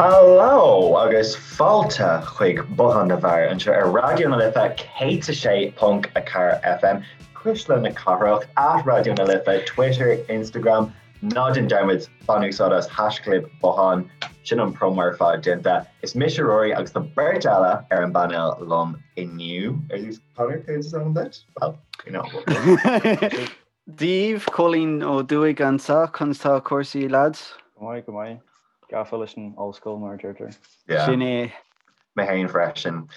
Hello agus fáilte chuig Bothán na bhFear anseo ar Raidió na Life 106.4 FM, Cuisle na Cathrach, at Raidió na Life, Twitter, Instagram, Ná déan dearmad, bain úsáid as haischlib Bothán, sin an promo ar fad déanta. Is mise Rory agus tá beirt eile ar an bpainéal liom inniu. Ar dtús, Conor, céard is ainm duit? Well, you know. Dia daoibh, Cóilín Ó Dúigh anseo, conas tá cúrsaí lads? Go maith, go maith. Gafa leis an ollscoil mar a deirtear. Yeah. Sin é. Mé féin freisin.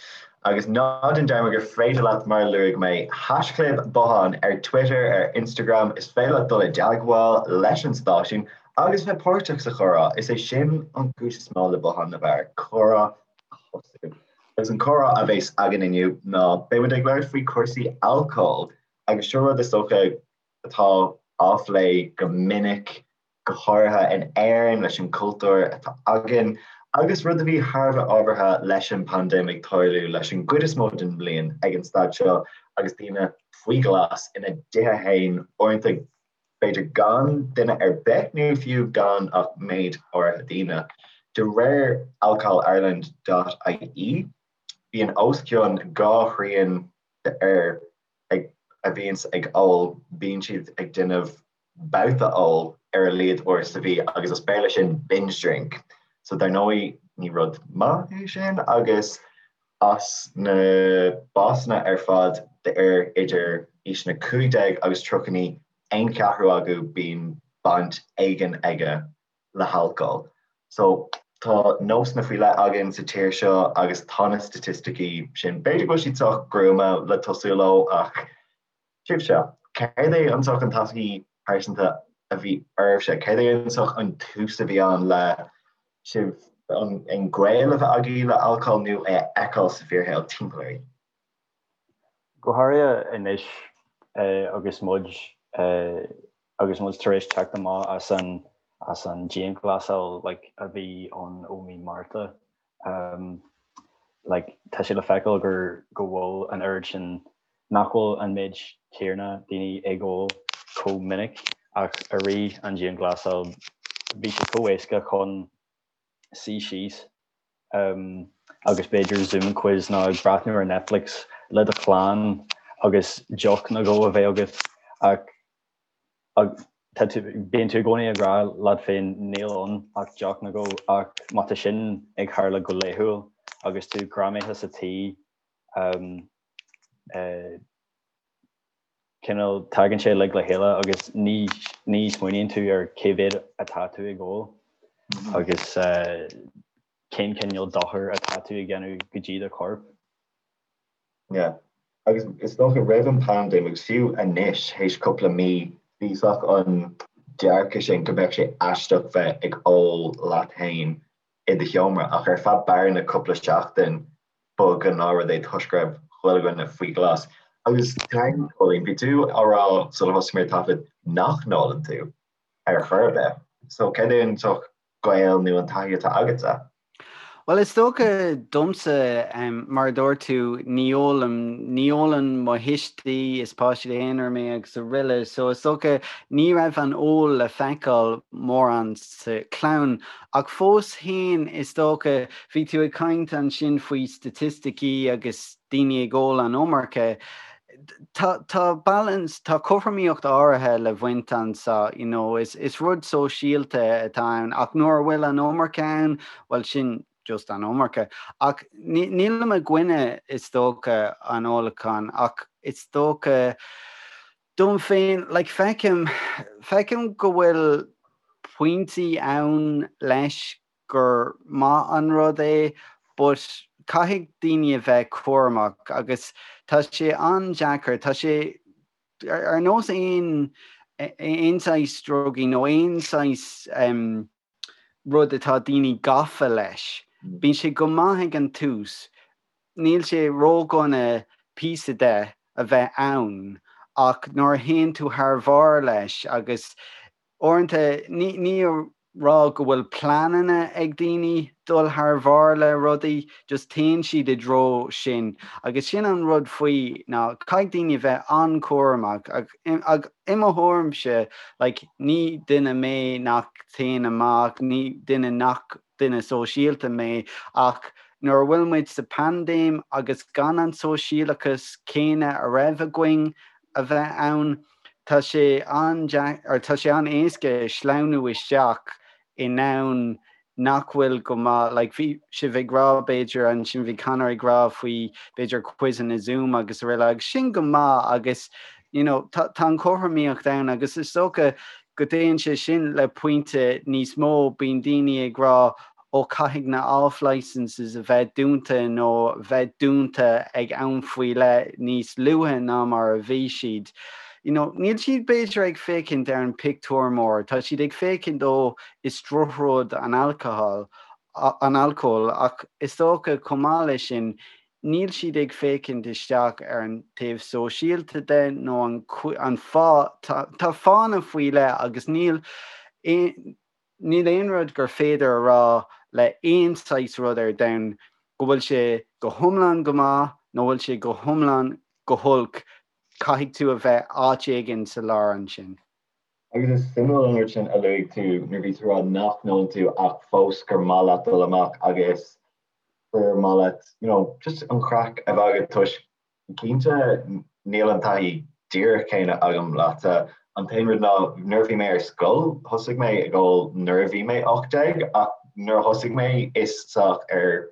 Agus ná déan dearmad gur féidir leat, mar a luaigh mé, haischlib Bothán ar Twitter, ar Instagram, is féidir leat dul i dteagmháil leis an stáisiún agus bheith páirteach sa chomhrá. Is é sin an chúis is mó le Bothán na bhFear, comhrá a thosú. Agus an comhrá a bheas againn inniu ná beidh muid ag labhairt faoi chúrsaí alcóil agus seo rud is dócha atá á phlé go minic go háirithe in Éirinn leis an gcultúr atá againn, agus rud a bhí thar a bheith ábhartha leis an bpaindéim ag tarlú leis an gcuid is mó den mbliain ag an staid seo agus daoine faoi ghlas ina dtithe féin, uaireanta b'fhéidir gan duine ar bith nó fiú gan ach méid áirithe daoine. De réir alcoholireland dot ie, bíonn os cionn 2 thrian d'fhir a bhíonns ag ól, bíonn siad ag déanamh babhta óil ar a laghad uair sa mhí agus as Béarla sin binge drink. So dar ndóigh ní rud maith é sin agus as na básanna ar fad d'fhir idir aoiseanna 15 agus 39, aon cheathrú acu bíonn baint éigin aige le halcól. So tá nósanna faoi leith againn sa tír seo agus tá na staitisticí sin, b'fhéidir go bhfuil siad sách gruama le tosú leo ach Sibhse, céard é an saghas an taithí pearsanta a bhí oraibhse? Céard é an saghas an tús a bhí ann le sibh an gaol a bheith agaibh le alcól nó é a fheiceáil sa bhfíorshaol timpeall oraibh? Go háirithe anois agus muid agus muid tar éis teacht amach as an as an dianghlasáil like a bhí ann ó mí Márta like tá sé le feiceáil gur go bhfuil an oiread sin nach bhfuil an méid céanna daoine ag ól chomh minic ach i rith an dianghlasáil bhí sé chomh éasca chun suí síos agus b'fhéidir Zoom quiz nó ag breathnú ar Netflix le do chlann agus deoch nó dhó a bheith agat ach tá tú, bíonn tú i gcónaí ag rá leat féin níl ann ach deoch nó dhó ach má tá sin ag tharla go laethúil agus tú greamaithe sa tí cineál tagann sé uilig le chéile agus ní ní smaoiníonn tú ar cé mhéad atá tú ag ól agus cén cineál dochair atá tú ag déanamh go dtí do chorp. Yeah. Agus is dócha roimh an bpaindéim agus fiú anois théis cúpla mí bhí saghas an dearcadh sin go mbeadh sé aisteach bheith ag ól leat féin i do sheomra ach ar feadh bearna cúpla seachtain ba ghnáthrud é toisc go raibh chuile dhuine faoi ghlas. Agus Cóilín, bhí tú á rá sular thosaigh mé ar taifead nach n-ólann tú ar chor ar bith. So céard é an saghas gaol nó an taithí atá agatsa? Bhuel, is dócha domsa, mar a dúirt tú, ní ólaim, ní ólann mo thuistí, is páiste aonair mé agus araile, so is dócha ní raibh an ól le feiceáil mórán sa chlann. Ach fós féin, is dócha, bhí tú ag caint ansin faoi staitisticí agus daoine ag ól an iomarca. Tá, tá balance, tá cothromaíocht áirithe le baint anseo, you know, is, is rud sóisialta atá ann ach nuair a bhfuil an iomarca ann, bhuel sin just an iomarca. Ach ní, nílim i gcoinne, is dócha, an ólacháin ach is dócha, Dom féin, like, feicim, feicim go bhfuil pointí ann leis gur maith an rud é but caithfidh daoine a bheith cúramach agus tá sé an-deacair, tá sé ar nós aon, aon saghas drugaí nó aon saghas rud atá daoine gafa leis. Bíonn sé go maith ag an tús, níl sé ródhona píosa de a bheith ann ach nuair a théann tú thar bharr leis agus uaireanta ní ní a rá go bhfuil pleananna ag daoine dul thar bharr le rudaí, just téann siad i dtreo sin agus sin an rud faoi ná caithfidh daoine a bheith an-chúramach ach i mo thuairimse like ní duine mé nach téann amach, ní duine nach. duine sóisialta mé ach nuair a bhfuil muid sa paindéim agus gan an sóisialachas céanna a raibh againn a bheith ann, tá sé an-deacair, tá sé an-éasca sleamhnú isteach i ndomhan nach bhfuil go maith, like bhí sibh ag rá b'fhéidir ansin, bhí Conor ag rá faoi b'fhéidir quizeanna Zoom agus araile agus sin go maith agus you know tá tá an chothromaíocht ann agus is dócha go dtéann sé sin le pointe níos mó, bíonn daoine ag rá ó caithfidh na off licenses a bheith dúnta nó bheith dúnta ag am faoi leith níos luaithe ná mar a bhí siad. You know, níl siad b'fhéidir ag féachaint ar an pictiúr mór, tá siad ag féachaint ó is drochrud an alcohol, an alcól, ach is dócha chomh maith leis sin, níl siad ag féachaint isteach ar an taobh sóisialta de nó an an fáth, tá tá fáthanna faoi leith agus níl aon níl aon rud gur féidir a rá le aon saghas rud ar domhan go bhfuil sé go hiomlán go maith nó bhfuil sé go hiomlán go holc, caithfidh tú a bheith áit éigin sa lár ansin. Agus is suimiúil an rud sin a luaigh tú nuair a bhí tú ag rá nach n-ólann tú ach fós gur maith leat dul amach agus gur maith leat you know just an chraic a bheith agat toisc cinnte níl an taithí díreach céanna agam leatsa. An t-aon rud ná nuair a bhí mé ar scoil thosaigh mé ag ól nuair a bhí mé 18 ach nuair a thosaigh mé is sách ar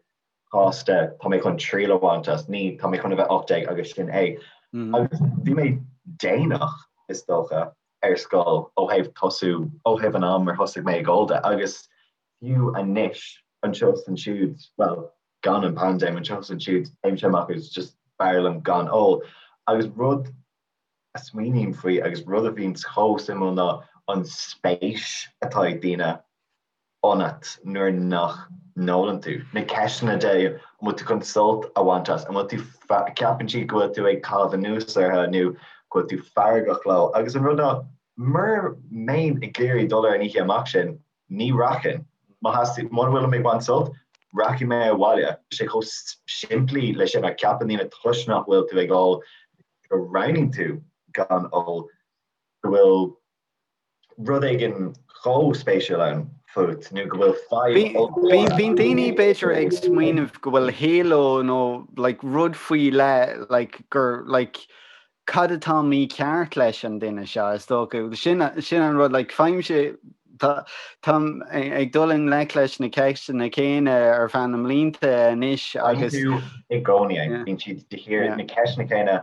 chás de tá mé chun triail a bhaint as, ní tá mé chun a bheith 18 agus sin é. Agus bhí mé déanach, is dócha, ar scoil ó thaobh tosú, ó thaobh an am ar thosaigh mé ag ól de agus fiú anois, anseo is ansiúd, bhuel, gan an paindéim, anseo is ansiúd, téimse amach agus just b'fhearr liom gan ól. Agus rud a smaoiním faoi agus rud a bhíonns chomh suimiúil ná an spéis atá ag daoine ionat nuair nach n-ólann tú. Na ceisteanna de an bhfuil tú chun sult a bhaint as, an bhfuil tú, ceapann siad go bhfuil tú ag caitheamh anuas orthu nó go bhfuil tú feargach leo. Agus an rud ná, mura mbeinn ag iarraidh dul ar an oíche amach sin, ní rachainn. Má theastaíonn, mura bhfuilim ag baint sult, rachaidh mé abhaile. Tá sé chomh simplí leis sin ach ceapann daoine toisc nach bhfuil tú ag ól, go roghnaíonn tú gan ól, go bhfuil rud éigin chomh spéisiúil ann fút nó go bhfuil fadhb ollmhór. Bíonn daoine b'fhéidir ag smaoineamh go bhfuil halo nó like rud faoi leith like gur like cad atá mícheart leis an duine seo is dócha. Sin sin an rud like faighimse tá táim ag dul i ngleic leis na ceisteanna céanna ar feadh na mblianta anois agus. Bíonn tú i gcónaí, bíonn siad de shíor na ceisteanna céanna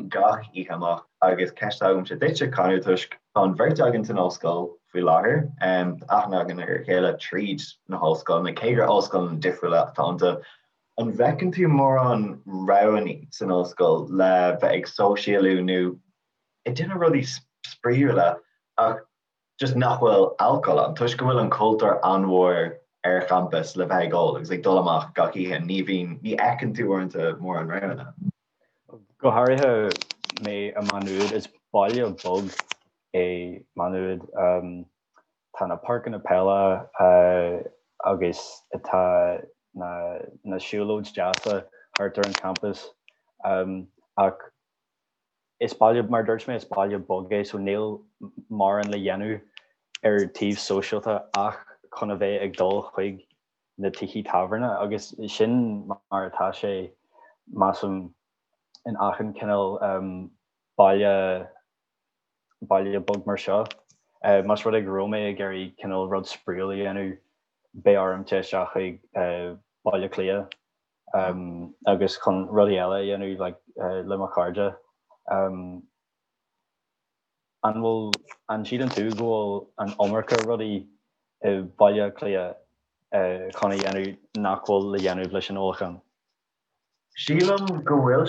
gach oíche amach agus ceist agamsa duitse, Conor, toisc tá an bheirt againn san ollscoil faoi láthair, tá aithne againn ar a chéile tríd na hollscoileanna, cé gur ollscoileanna difriúla atá iontu. An bhfeiceann tú mórán roghanna san ollscoil le bheith ag sóisialú nó ag déanamh rudaí spraíúla ach just nach bhfuil alcól ann, toisc go bhfuil an cultúr an-mhór ar champas le bheith ag ól agus ag dul amach gach oíche, ní bhíonn, ní fheiceann tú uaireanta mórán roghanna. Go háirithe mé i Má Nuad, is baile beag é Má Nuad. Tá na páirceanna peile agus tá na na siúlóid deasa thart ar an champas ach Is baile, mar a dúirt mé, is baile beag é so níl mórán le dhéanamh ar taobh sóisialta ach chun a bheith ag dul chuig na tithe tábhairne agus sin mar atá sé measaim in achan cineál baile baile beag mar seo. Más rud é go raibh mé ag iarraidh cineál rud spraíúil a dhéanamh beidh orm téigh isteach chuig Baile Átha Cliath agus chun rudaí eile a dhéanamh like le mo chairde. An bhfuil, an síleann tú go bhfuil an iomarca rudaí i Baile Átha Cliath chun a dhéanamh nach bhfuil le dhéanamh leis an ólachán? Sílim go bhfuil,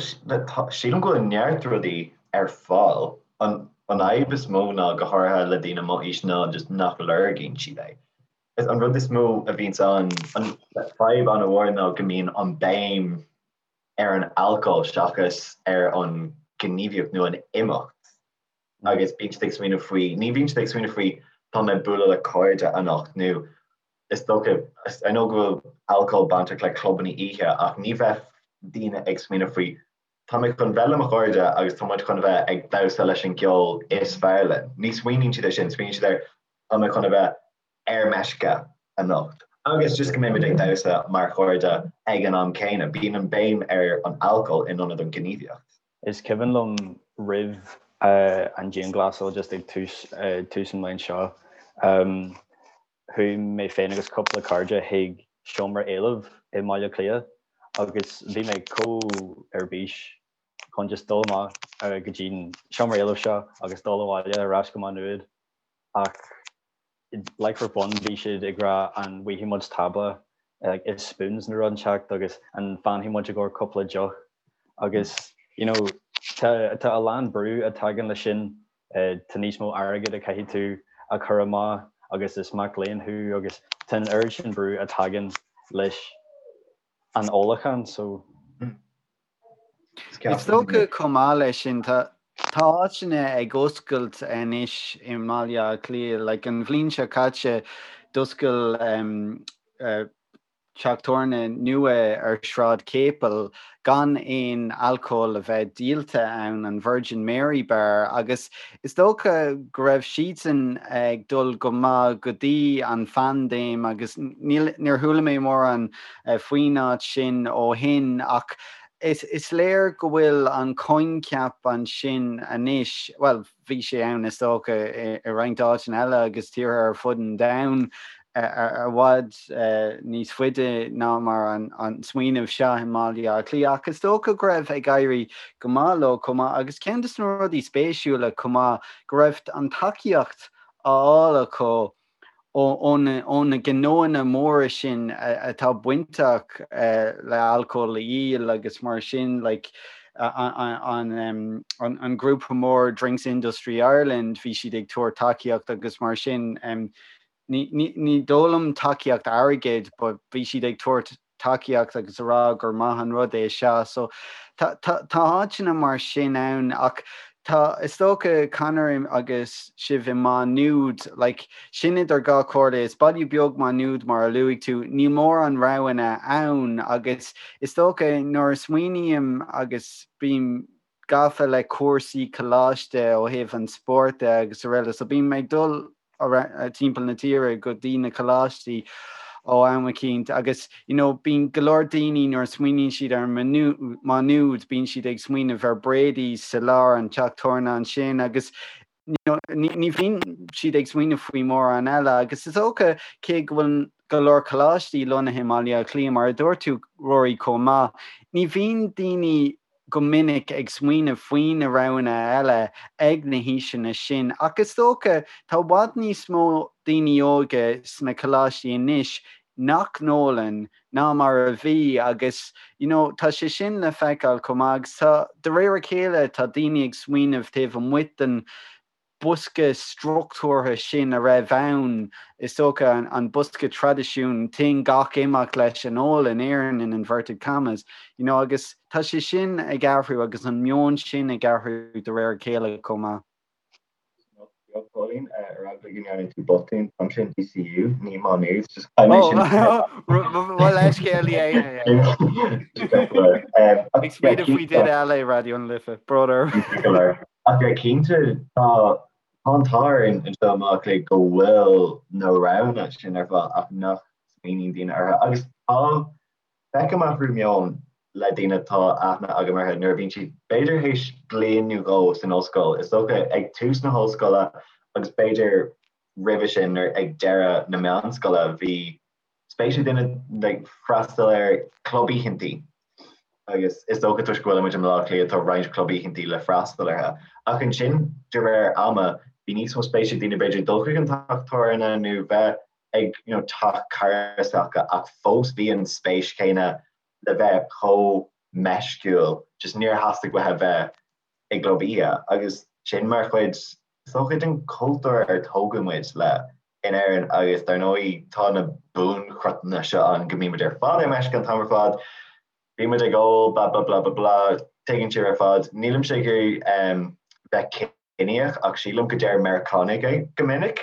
sílim go bhfuil neart rudaí ar fáil. An fhadhb is mó ná, go háirithe le daoine mo aois, ná just nach lorgaíonn siad é. Is an rud is mó a bhíonns ann, an fadhb an-mhór ná go mbíonn an béim ar an alcól seachas ar an gníomhaíocht nó an imeacht agus bíonn siad ag smaoineamh faoi, ní bhíonn siad ag smaoineamh faoi tá mé ag bualadh le cairde anocht nó is dócha, I know go bhfuil alcól bainteach le clubanna oíche ach ní bheadh daoine ag smaoineamh faoi tá mé chun bheith le mo chairde agus tá muid chun a bheith ag damhsa leis an gceol is fearr linn. Ní smaoiníonn siad ar sin, smaoiníonn siad ar tá mé chun a bheith ar meisce anocht. Agus just go mbeimid ag damhsa mar chairde ag an am céanna. Bíonn an béim ar an alcól in ionad an ghníomhaíocht. Is cuimhin liom roimh an dianghlasáil just ag tús tús an bhliain seo, chuaigh mé féin agus cúpla cairde chuig seomra éilimh i mBaile Átha Cliath agus bhí mé chomh ar bís chun just dul amach go dtí an seomra éilimh seo agus dul abhaile ar ais go Maigh Nuad ach like for fun bhí siad ag rá an bhfaighidh muid tábla like is spoons nó rud inteacht agus an bhfanfaidh muid i gcomhair cúpla deoch agus you know tá tá a lán brú a tagann leis sin tá níos mó airgead a caithfidh tú a chur amach agus is mac léinn thú agus tá an oiread sin brú a tagann leis an ólachán so Is dócha chomh maith leis sin, tá áiteanna ag oscailt anois i mBaile Átha Cliath. Like an bhliain seo caite d'oscail teach tábhairne nua ar Shráid Chéipil gan aon alcól a bheith díolta ann, an Virgin Mary Bar, agus is dócha go raibh siadsan ag dul go maith go dtí an phaindéim agus níl, níor chuala mé mórán faoin áit sin ó shin ach is léir go bhfuil an coincheap ansin anois, bhuel, bhí sé ann is dócha i roinnt áiteanna eile agus tíortha ar fud an domhain i bhfad níos faide ná mar an smaoineamh seo i mBaile Átha Cliath ach is dócha go raibh ag éirí go maith leo chomh maith agus ceann de na rudaí spéisiúla chomh maith go raibh an tacaíocht á fháil acu ó na gnóanna móra sin atá bainteach le alcól a dhíol agus mar sin, like an grúpa mór Drinks Industry Ireland, bhí siad ag tabhairt tacaíocht agus mar sin. Ní dóigh liom tacaíocht airgid but bhí siad ag tabhairt tacaíocht agus a rá gur maith an rud é seo. So tá áiteanna mar sin ann ach tá, is dócha, Conor agus sibh i Maigh Nuad, like, sin idir dhá chomhairle, is baile beag Maigh Nuad mar a luaigh tú, níl mórán roghanna ann agus is dócha nuair a smaoiním agus bím gafa le cúrsaí coláiste ó thaobh an spóirt de agus araile so bím ag dul timpeall na tíre go dtí na coláistí ó am eicínt agus you know bíonn go leor daoine nuair a smaoiníonn siad ar Maigh Nuad bíonn siad ag smaoineamh ar Brady's sa lár an teach tábhairne ansin agus you know ní bhíonn siad ag smaoineamh faoi mórán eile agus is dócha cé go bhfuil go leor coláistí lonnaithe i mBaile Átha Cliath mar a dúirt tú Rory chomh maith ní bhíonn daoine go minic ag smaoineamh faoi na roghanna eile ag na haoiseanna sin ach is dócha tá i bhfad níos mó daoine óga sna coláistí anois nach n-ólann ná mar a bhí agus you know tá sé sin le feiceáil chomh maith agus tá de réir a chéile tá daoine ag smaoineamh taobh amuigh den bosca struchtúrtha sin a raibh ann, is dócha, an bosca traidisiún, téann gach imeacht leis an ól in Éirinn in inverted commas, you know, agus tá sé sin ag athrú agus an meon sin ag athrú de réir a chéile chomh maith. Beag Póilín, ar eagla go ndearna tú botún, táimse in DCU, ní Má Nuad, just caithfidh mé sin. Mo leithscéal yeah. Ag smaoineamh faoi duine eile i Raidió na Life, brón orm. Ach cinnte, tá an t-ádh orainn anseo i mBaile Átha Cliath go bhfuil na roghanna sin ar fáil ach nach smaoiníonn daoine orthu. Agus tá, feicim athrú meoin le daoine atá aithne agam orthu nuair a bhíonn siad b'fhéidir théis bliain nó dhó san ollscoil, is dócha ag tús na hollscoile agus b'fhéidir roimhe sin nuair ag deireadh na meánscoile bhí spéis ag daoine like freastal ar club oícheantaí agus is dócha toisc go bhfuilimid i mBaile Átha Cliath tá roinnt club oícheantaí le freastal orthu. Ach ansin de réir ama bhí níos mó spéis ag daoine b'fhéidir dul chuig an teach tábhairne nó bheith ag you know teach cara s'acu ach fós bhí an spéis chéanna le bheith chomh meisciúil just níor theastaigh uathu bheith i gclub oíche agus sin mar chuid is dócha den chultúr ar tógadh muid le in Éirinn agus dar ndóigh tá na buanchruthanna seo ann go mbímid ar fad ar meisce an t-am ar fad, bímid ag ól blah blah blah blah blah, tuigeann sibh ar fad. Nílimse ag iarraidh bheith ciníoch ach sílim go deir Meiriceánaigh é go minic.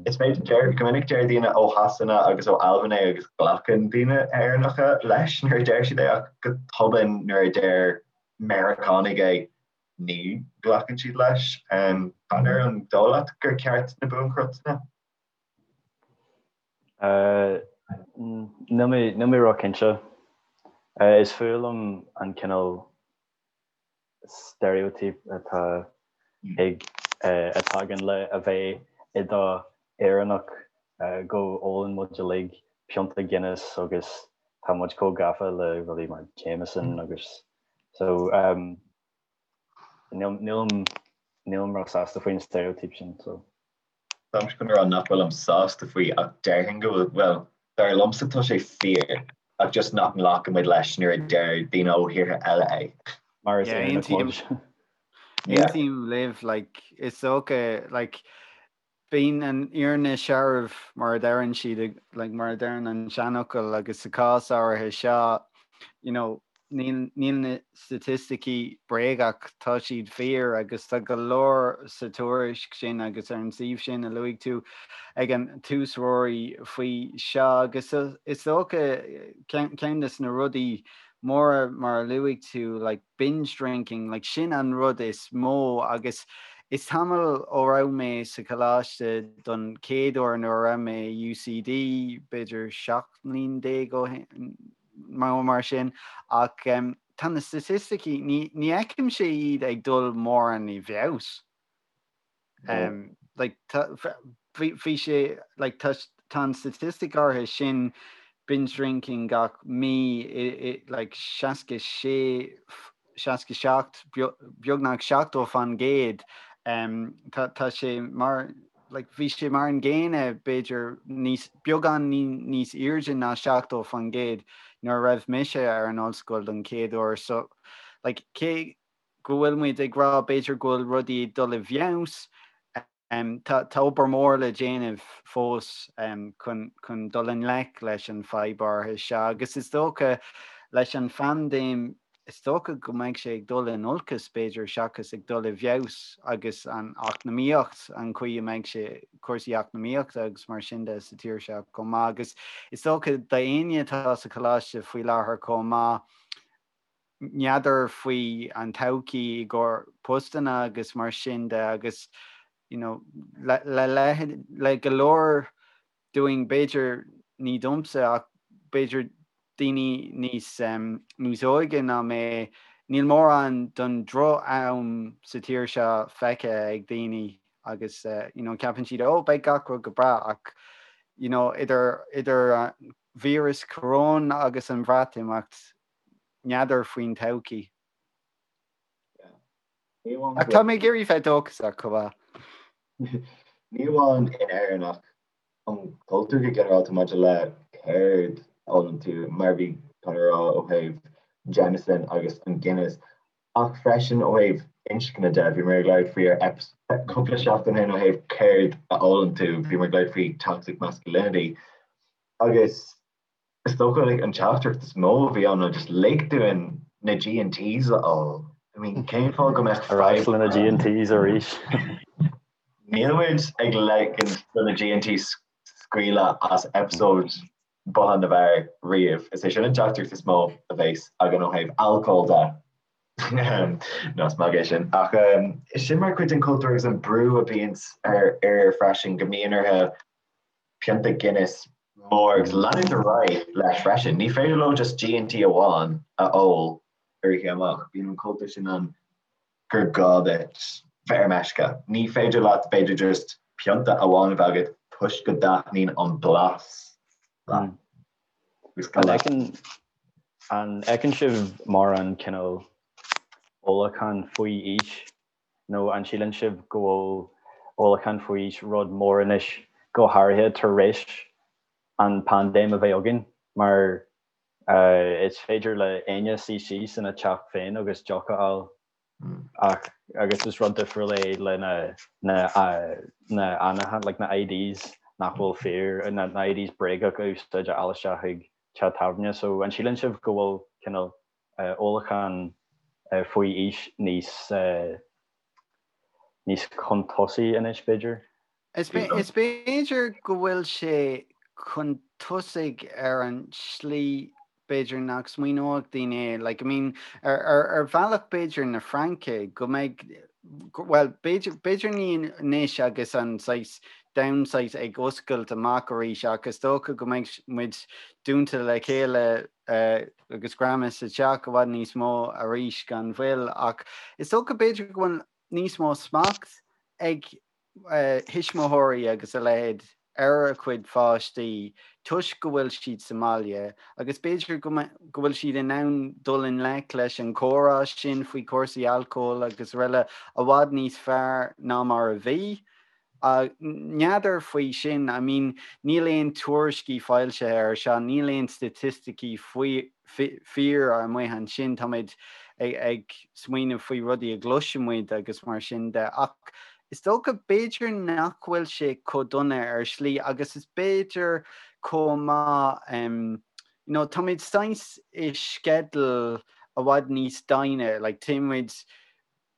Is féidir deir go minic deir daoine ó Shasana agus ó Albain é agus glacann daoine Éireannacha leis nuair a deir siad é ach go tobann nuair a deir Meiriceánaigh é ní ghlacann siad leis. Conor, an dóigh leat gur ceart na buanchruthanna? Níl mé níl mé ró-chinnte. Is fuath liom an cineál stereotype atá ag a tagann le a bheith i do Éireannach go ólann muid uilig pionta Guinness agus tá muid chomh gafa le rudaí mar Jameson agus so níl nílim nílim ró-sásta faoin stereotype sin so. Táimse chun a rá nach bhfuilim sásta faoi ach déarfainn go bhfuil, bhuel, dar liomsa tá sé fíor ach just nach nglacaimid leis nuair a deir daoine ó thíortha eile é. Mar is Éireannach muid. Aontaím libh, like, is dócha, like, bíonn an fhírinne searbh mar a deireann siad, like, mar a deireann an seanfhocal agus sa cás áirithe seo, you know, níl níl na staitisticí bréagach, tá siad fíor agus tá go leor sa tuairisc sin agus ar an suíomh sin a luaigh tú ag an tús Ruairí faoi seo agus is dócha ceann de na rudaí móra mar a luaigh tú like binge drinking like sin an rud is mó agus is tamall ó raibh mé sa choláiste don chéad uair nuair a raibh mé i UCD b'fhéidir 17 mbliain ó shin nó mar sin, ach tá na staitisticí, ní fheicimse iad ag dul mórán i bhfeabhas. Like, bhí sé, like, tá an statistic áirithe sin, binge drinking gach mí, like, 66, 67, beagnach 70%, tá sé mar, like, bhí sé mar an gcéanna, b'fhéidir níos, beagán níos airde ná 70% nuair a raibh mise ar an ollscoil don chéad uair. So, like, cé go bhfuil muid ag rá b'fhéidir go bhfuil rudaí ag dul i bhfeabhas, Tá obair mhór le déanamh fós chun dul i ngleic leis an fadhb áirithe seo agus is dócha leis an phaindéim, is dócha go mbeidh sé ag dul in olcas b'fhéidir seachas ag dul i bhfeabhas agus an eacnamaíocht, an chaoi a mbeidh sé, cúrsaí eacnamaíochta agus mar sin de sa tír seo chomh maith agus is dócha d'éinne atá sa choláiste faoi láthair chomh maith, n'fheadar faoi an todhchaí i gcomhair postanna agus mar sin de agus you know le le le go leor dúinn b'fhéidir ní domsa ach b'fhéidir daoine níos um, níos óige ná mé níl mórán don droch-am sa tír seo feicthe ag daoine agus uh, you know, ceapann siad ó beidh gach rud go breá ach you know, idir idir uh, víreas coróin agus an Bhreatimeacht n'fheadar faoin todhchaí. Ach tá mé ag iarraidh bheith dóchasach chomh maith. Ní amháin in Éirinn ach an cultúr go ginearálta maidir le céard a ólann tú, mar a bhí Conor a rá ó thaobh Jameson agus an Guinness, ach freisin ó thaobh inscne de, bhíomar ag labhairt faoi ar cúpla seachtain ó shin ó thaobh céard a ólann tú, bhíomar ag labhairt faoi toxic masculinity agus Is dócha like an teachtaireacht is mó a bhí ann ná just lig dúinn na G&Ts a ól. I mean cén fáth go mbeadh Ar ais le na G&Ts arís. Níl muid ag ligean do na G&Ts scaoileadh as episode Bothán na bhFear riamh. Is é sin an teachtaireacht is mó a bheas againn ó thaobh alcóil de. Nó is magadh é sin. Ach sin mar chuid den chultúr agus an brú a bhíonns ar fhir freisin go mbíonn orthu pionta Guinness mór agus leanúint ar aghaidh leis freisin. Ní féidir leo just G&T amháin a ól ar oíche amach. Bíonn an cultúr sin ann gur gá duit bheith ar meisce. Ní féidir leat b'fhéidir just pionta amháin a bheith agat toisc go dtaitníonn an blas leat. An fheiceann sibh mórán cineál ólachán faoi aois Nó an síleann sibh go bhfuil ólachán faoi aois rud mór anois, go háirithe tar éis an paindéim a bheith againn, mar is féidir le éinne suí síos ina teach féin agus deoch a fháil ach agus is rud difriúil é le na na na like na IDs nach bhfuil fíor, na IDs bréagach a úsáid a fháil isteach chuig teach tábhairne. So an síleann sibh go bhfuil cineál ólachán faoi aois níos níos chun tosaigh anois, b'fhéidir. Is b'fhéidir go bhfuil sé chun tosaigh ar an slí b'fhéidir nach smaoineodh daoine é. Like, I mean, ar, ar, ar bhealach b'fhéidir na Fraince go mbeidh. Bhuel, b'fhéidir ní anois agus an saghas domhan saghas ag oscailt amach arís ach is dócha go mbeidh muid dúnta le chéile agus greamaithe sa teach i bhfad níos mó arís gan mhoill ach is dócha b'fhéidir go bhfuil níos mó smacht ag thuismitheoirí agus a leithéid ar a gcuid pháistí toisc go bhfuil siad sa mbaile agus b'fhéidir go bhfuil siad in ann dul i ngleic leis an chomhrá sin faoi chúrsaí alcóil agus araile i bhfad níos fearr ná mar a bhí. N'fheadar faoi sin, I mean níl aon tuairiscí foilsithe ar seo, níl aon staitisticí faoi fíor amuigh ansin, táimid ag smaoineamh faoi rudaí a gcloiseann muid agus mar sin de ach is dócha b'fhéidir nach bhfuil sé chomh dona ar shlí agus is b'fhéidir chomh maith you know táimid saghas i sceideal i bhfad níos doimhne like téimid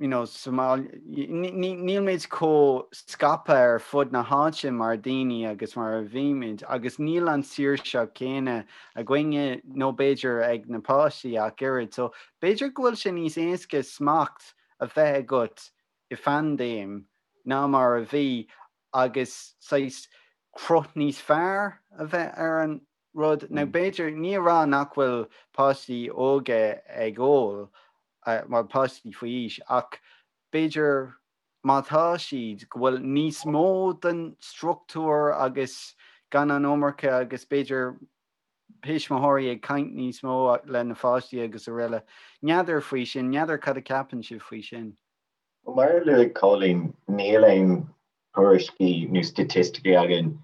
you know, sa mbaile, níl muid chomh scaipthe ar fud na háite mar daoine agus mar a bhí muid agus níl an saoirse céanna againne nó b'fhéidir ag na páistí ach oiread. So b'fhéidir go bhfuil sé níos éasca smacht a bheith agat i phaindéim ná mar a bhí agus saghas cruth níos fearr a bheith ar an rud. Now b'fhéidir, ní a rá nach bhfuil páistí óga ag ól, bhuel páistí faoi aois, ach b'fhéidir má tá siad, go bhfuil níos mó den struchtúr agus gan an iomarca agus b'fhéidir tuismitheoirí ag caint níos mó le na pháistí agus araile. N'fheadar faoi sin, n'fheadar cad a ceapann sibh faoi sin. Mar a luaigh Cóilín, níl aon tuairiscí nó staitisticí againn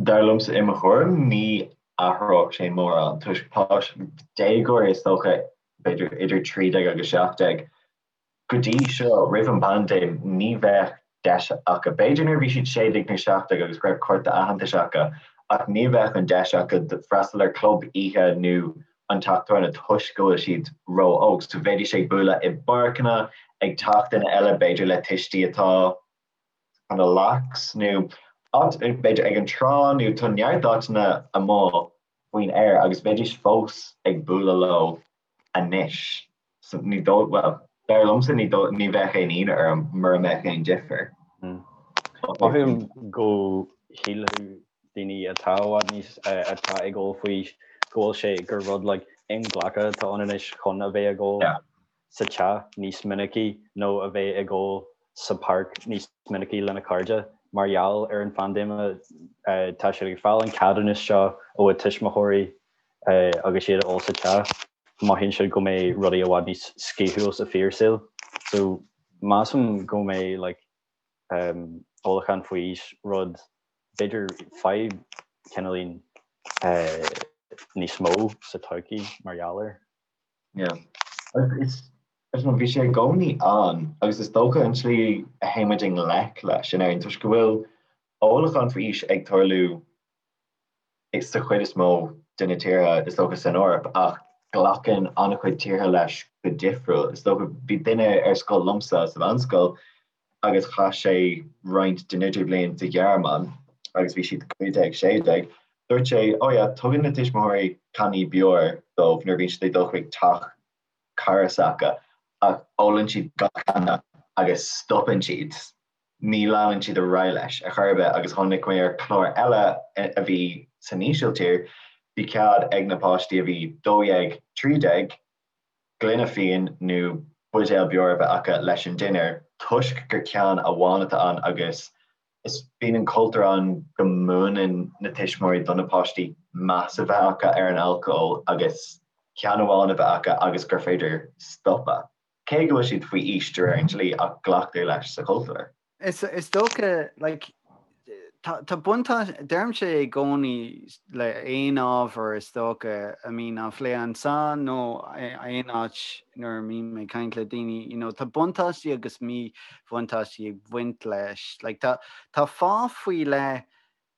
Dar liomsa, i mo thuairim, ní athródh sé mórán toisc páistí, déagóirí is dócha, b'fhéidir idir 13 agus 17, go dtí seo, roimh an bpaindéim, ní bheadh deis acu, b'fhéidir nuair a bhí siad 16 nó 17 agus go raibh cárta aitheantais acu, ach ní bheadh an deis acu freastal ar club oíche nó an teach tábhairne toisc go bhfuil siad ró-óg. So bheidís ag bualadh i bpáirceanna, ag teach duine eile, b'fhéidir le tuistí atá kind of lax nó áit b'fhéidir ag an trá nó tá neart áiteanna amuigh faoin aer agus bheidís fós ag bualadh leo anois. So ní dóigh, bhuel, dar liomsa ní dóigh, ní bheadh aon ionadh orm mura mbeadh aon difear. Mothaím go shílfeadh daoine atá i bhfad níos, atá ag ól faoi aois go bhfuil sé gur rud like inghlactha atá ann anois chun a bheith ag ól. sa teach níos minicí nó a bheith ag ól sa pháirc níos minicí lena cairde. Mar gheall ar an phaindéim tá siad ag fáil an ceadúnas seo ó a tuismitheoirí agus iad ag ól sa teach. Mothaíonn siad go mbeidh rudaí i bhfad níos scaoilte sa fíorshaol. So measaim go mbeidh like ólachán faoi aois rud b'fhéidir fadhb cineáilín níos mó sa todhchaí mar gheall air. Yeah. Is bhí sé i gcónaí ann agus is dócha an tslí a théann muid i ngleic leis in Éirinn toisc go bhfuil ólachán faoi aois ag tarlú sa chuid is mó de na tíortha is dócha san Eoraip ach glacann an-chuid tíortha leis go difriúil. Is dócha bhí duine ar scoil liomsa sa mheánscoil agus chaith sé roinnt den idirbhliain sa Ghearmáin agus bhí siad 15, 16. Dúirt sé, oh yeah, tugann na tuismitheoirí cannaí beoir dóibh nuair a bhíonn siad ag dul chuig teach cara s'acu ach ólann siad gach canna agus stopann siad, ní leanann siad ar aghaidh leis ar chor ar bith agus tháinig mé ar chlár eile a bhí san Ísiltír, bhí cead ag na páistí a bhí 12, 13, gloine fíon nó buidéal beoir a bheith acu leis an dinnéar toisc gur ceann amháin atá ann agus is bíonn an cultúr ann go múineann na tuismitheoirí do na páistí meas a bheith acu ar an alcól agus ceann amháin a bheith acu agus gur féidir stopadh, cé go bhfuil siad faoi aois de réir an dlí ach glactar leis sa chultúr. Is dócha, like, tá buntáiste, deirimse i gcónaí le aon ábhar is dócha a mbíonn á phlé anseo nó aon áit nuair a mbím ag caint le daoine, you know, tá buntáistí agus míbhuntáistí ag baint leis. Like, tá, tá fáth faoi leith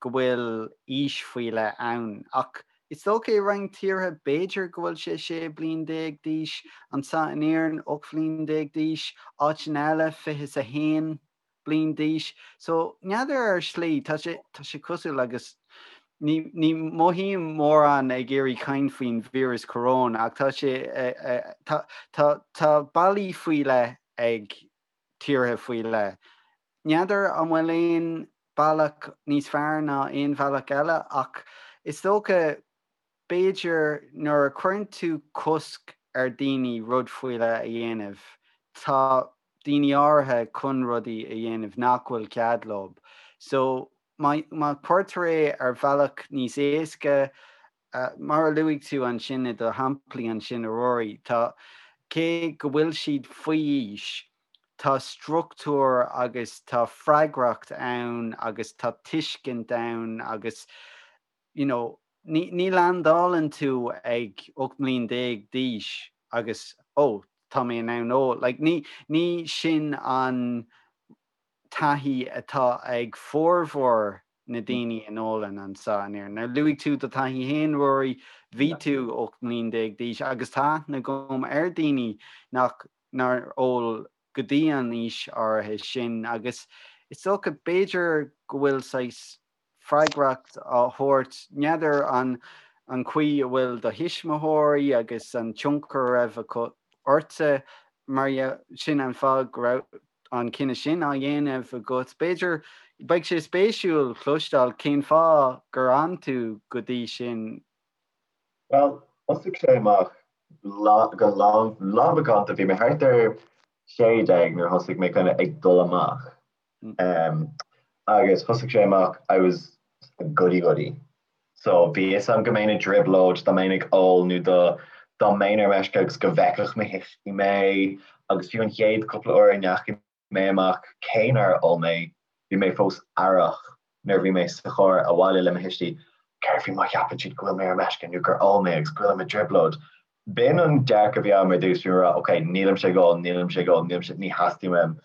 go bhfuil aois faoi leith ann. Ach is dócha i roinnt tíortha b'fhéidir go bhfuil sé 16 bliain d'aois, anseo in Éirinn 18 bhliain d'aois, áiteanna eile 21 bliain d'aois. So n'fheadar ar shlí, tá sé, tá sé cosúil agus ní, ní mothaím mórán ag iarraidh caint faoin víreas coróin ach tá sé, tá, tá, tá bealaí faoi leith ag. tíortha faoi leith. N'fheadar an bhfuil aon bealach níos fearr ná aon bhealach eile ach is dócha b'fhéidir nuair a chuireann tú cosc ar daoine rud faoi leith a dhéanamh tá daoine áirithe chun rudaí a dhéanamh nach bhfuil cead leo. So má má chuirtear é ar bhealach níos éasca Mar a luaigh tú ansin i do shamplaí ansin, a Ruairí, tá, cé go bhfuil siad faoi aois, tá struchtúr agus tá freagracht ann agus tá tuiscint ann agus, you know, ní, ní leaindeálann tú ag 18 mbliain d'aois agus, oh, tá mé in ann ól. Like, ní, ní sin an taithí atá ag formhór na daoine a n-ólann anseo in Éirinn. Now luaigh tú do thaithí féin, Ruairí, bhí tú 18 mbliain d'aois agus tá aithne agam ar daoine nach nár ól go dtí an aois áirithe sin agus is dócha b'fhéidir go bhfuil saghas freagracht á thabhairt, n'fheadar an an chaoi a bhfuil do thuismitheoirí agus an tionchar a raibh acu ortsa mar sin an fáth go raibh an cinneadh sin á dhéanamh agat. B'fhéidir, beidh sé spéisiúil cloisteáil cén fáth gur fhan tú go dtí sin. Bhuel, thosaigh sé amach go lánmhacánta. Bhí mé thart ar 16 nuair a thosaigh mé kind of ag dul amach. Agus thosaigh sé amach, I was a goody goody. So bhí fhios a'm go mbeinn i dtrioblóid dá mbeinn ag ól nó dá dá mbeinn ar meisce agus go bhfeicfeadh mo thuistí mé agus fiú an chéad cúpla uair a ndeachaigh mé amach cé nár ól mé bhí mé fós aireach nuair a bhí mé sa charr abhaile le mo thuistí céard faoi má cheapann siad go bhfuil mé ar meisce nó gur ól mé agus go bhfuilim i dtrioblóid. B'in an dearcadh a bhí agam ar dtús, bhí mé ag rá ok nílimse ag ól, nílimse ag ól, nílimse, ní theastaíonn uaim.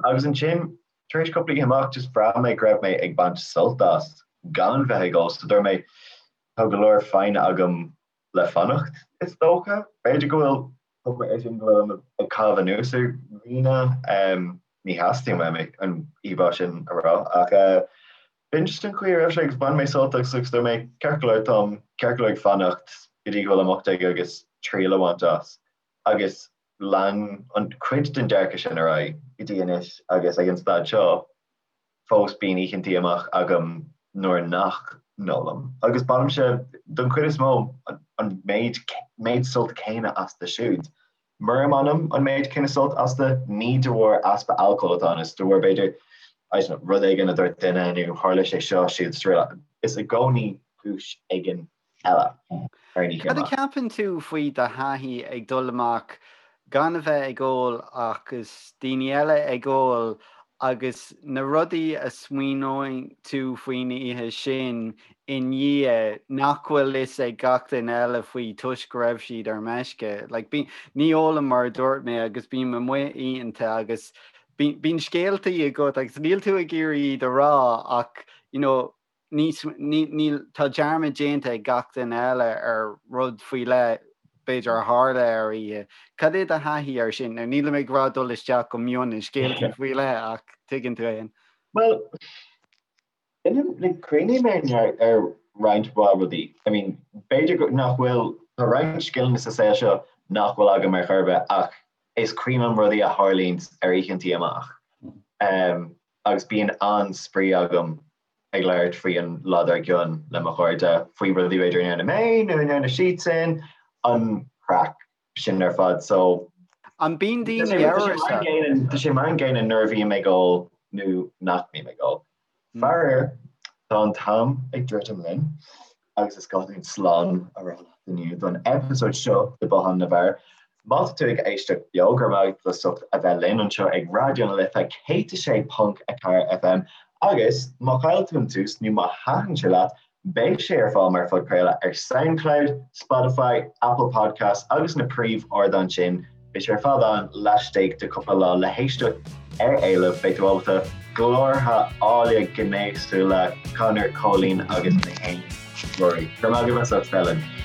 Agus ansin Tar éis cúpla oíche amach, just bhraith mé go raibh mé ag baint sult as gan bheith ag ól, so dúirt mé, tá go leor foighne agam le fanacht, is dócha. B'fhéidir go bhfuil cuma air sin go bhfuilim ag caitheamh anuas ar dhaoine, ní theastaíonn uaim an íomhá sin a rá, ach b'in just an chaoi a raibh sé agus bhain mé sult as agus dúirt mé, ceart go leor, táim ceart go leor ag fanacht go dtí go bhfuilim 18 agus triail a bhaint as. Agus lean an cuid den dearcadh sin ar aghaidh go dtí anois agus ag an staid seo fós bíonn oícheantaí amach agam nuair nach n-ólaim agus bainimse don chuid is mó an méid méid sult céanna astu siúd. Mura mbainim an méid céanna sult astu ní de bharr easpa alcóil atá ann, is de bharr b'fhéidir I don't know, rud éigin a dúirt duine nó tharla sé seo siúd is araile. Is i gcónaí cúis éigin eile ar an oíche Cad a amach. cheapann tú faoi do thaithí ag dul amach gan a bheith ag ól agus daoine eile ag ól agus na rudaí a smaoineoidh tú faoin oíche sin i ndiaidh nach bhfuil fhios ag gach duine eile faoi toisc go raibh siad ar meisce? Like, bí, ní ólaim mar a dúirt mé agus bím amuigh oícheanta agus bíonn scéaltaí agat agus níl tú ag iarraidh iad a rá ach you know, níos, níl, tá dearmad déanta ag gach duine eile ar rud faoi leith, b'fhéidir, a tharla ar oíche. Cad é do thaithí air sin? Now, nílim ag rá dul isteach go mion i scéaltaí faoi leith ach tuigeann tú féin. Bhuel, like, cuimhním ar, ar roinnt mhaith rudaí. I mean, b'fhéidir go, nach bhfuil, tá roinnt scileanna sa saol seo nach bhfuil agam ar chor ar bith ach is cuimhin liom rudaí a tharlaíonn ar oícheantaí amach. Um, agus bíonn an-spraoi agam ag labhairt faoi an lá dár gcionn le mo chairde, faoi rudaí b'fhéidir a ndearna mé nó a ndearna siadsan, an craic sin ar fad. So An bíonn daoine amhrasach? Tá sé mar an gcéanna nuair a bhím ag ól nó nach mbím ag ól. Faraor, tá an t-am ag druidim linn agus is gá dúinn slán a rá leat inniu don eipeasóid seo de Bothán na bhFear. Má tá tú ag éisteacht beo, go raibh maith agat as ucht a bheith linn anseo ag Raidió na Life 106.4 FM agus má chaill tú an tús nó má thaitin sé leat, beidh sé ar fáil mar phodchraoladh ar Soundcloud, Spotify, Apple Podcasts agus na príomh-ardáin sin. Beidh sé ar fad ann laistigh de cúpla lá le héisteacht ar éileamh. Beidh tú ábalta glórtha áille gnéasúla Conor, Cóilín agus mé féin, Ruairí. Go raibh maith agaibh as ucht a bheith linn.